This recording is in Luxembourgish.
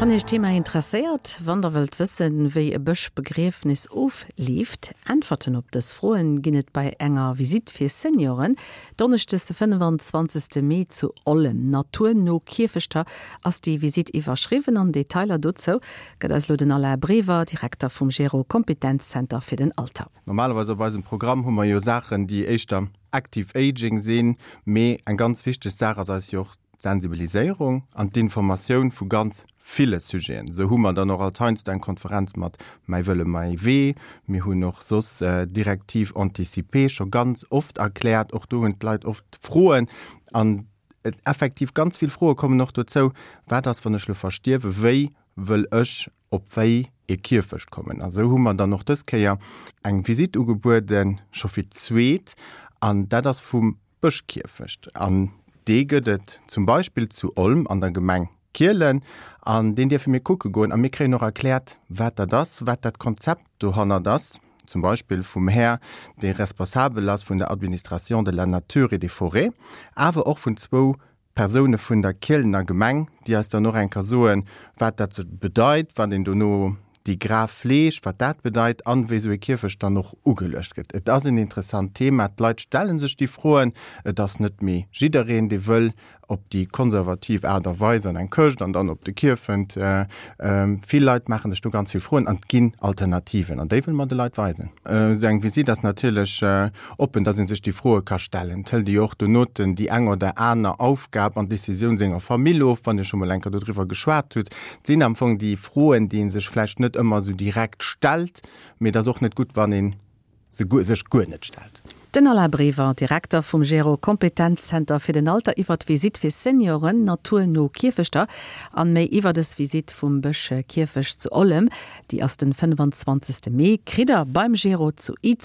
Wann Iech d'Thema interesséiert, wann der wëllt wëssen, wéi e Bëschbegriefnis ofleeft, Äntwerten op dës Froen ginn et bei enger Visitt fir Senioren, Donneschdes de 25. Mee zu Ollem. Naturno Kierfechter ass déi Visitt iwwerschriwwen an Detailer dozou gëtt eis elo den Alain Brever, Direkter vum Gero Kompetenzzenter fir den Alter. Normalerweis op eisem Programm hu mer jo Saachen, déi éischter Active Aging sinn, mee eng ganz wichteg Saach ass eis jo och d'Sensibiliséierung an d'Informatioun vu ganz ville Sujeten. Esou hu mer dann och alt heiansdo eng Konferenz mat Mäi Wëlle, mäi Wee. Mir hunn och soss d'Directive anticipée scho ganz oft erkläert. Och do hunn d'Leit oft Froen. An effektiv ganz vill Froe kommen och dozou, Wat ass, wann ech elo verstierwen? Wéi wëll ech op wéi ee Kierfecht kommen? A sou hu mer dann och dës Kéier eng Visitt ugebueden, scho fir d'zweet, an dat ass vum Bëschkierfecht. An dee gëtt et zum Beispill zu Olm an der Gemeng Kielen. An deen dierfe mir kucke goen a mir kréien och erkläert, wat dat ass, wat dat Konzept dohannert ass, zum Beispill vum Här, dee responsabel ass vun der Administration de la nature et des forêts, awer och vun zwou Persoune vun der Kielener Gemeng, déi eis dann och eng Kéier soen, wat dat sou bedeit, wann een dono déi Graf fleegt, wat dat bedeit an wéi sou e Kierfecht dann och ugeluecht gëtt. Et ass en interessant Thema, d'Leit stelle sech déi Froen. Et ass net méi jiddereen, dee wëll op déi konservativ Aart a Weis an eng Këscht an dann op de Kierfent. Vill Leit maache sech do ganz vill Froen an et ginn Alternativen an déi wëlle mer de Leit weisen. Esou eng Visitt ass natierlech oppen, dass ee sech déi Froe ka stellen. Et hëlt ee jo och donoten déi eng oder aner Aufgab an Decisioun senger Famill of, wann Dir scho mol eng Kéier dodriwwer geschwat hutt. Et sinn am Fong déi Froen, déi ee sech vläicht net ëmmer esou direkt stellt, mee et ass och net gutt, wann ee se sech guer net stellt. Den Alain Brever, Direkter vum Gero Kompetenzzenter fir den Alter iwwer d'Visitt fir Senioren naturno Kierfechter an méi iwwer dës Visitt vum Bësch Kierfecht zu Ollem, déi ass den 25 Mee, kritt der beim Gero zu Izeg.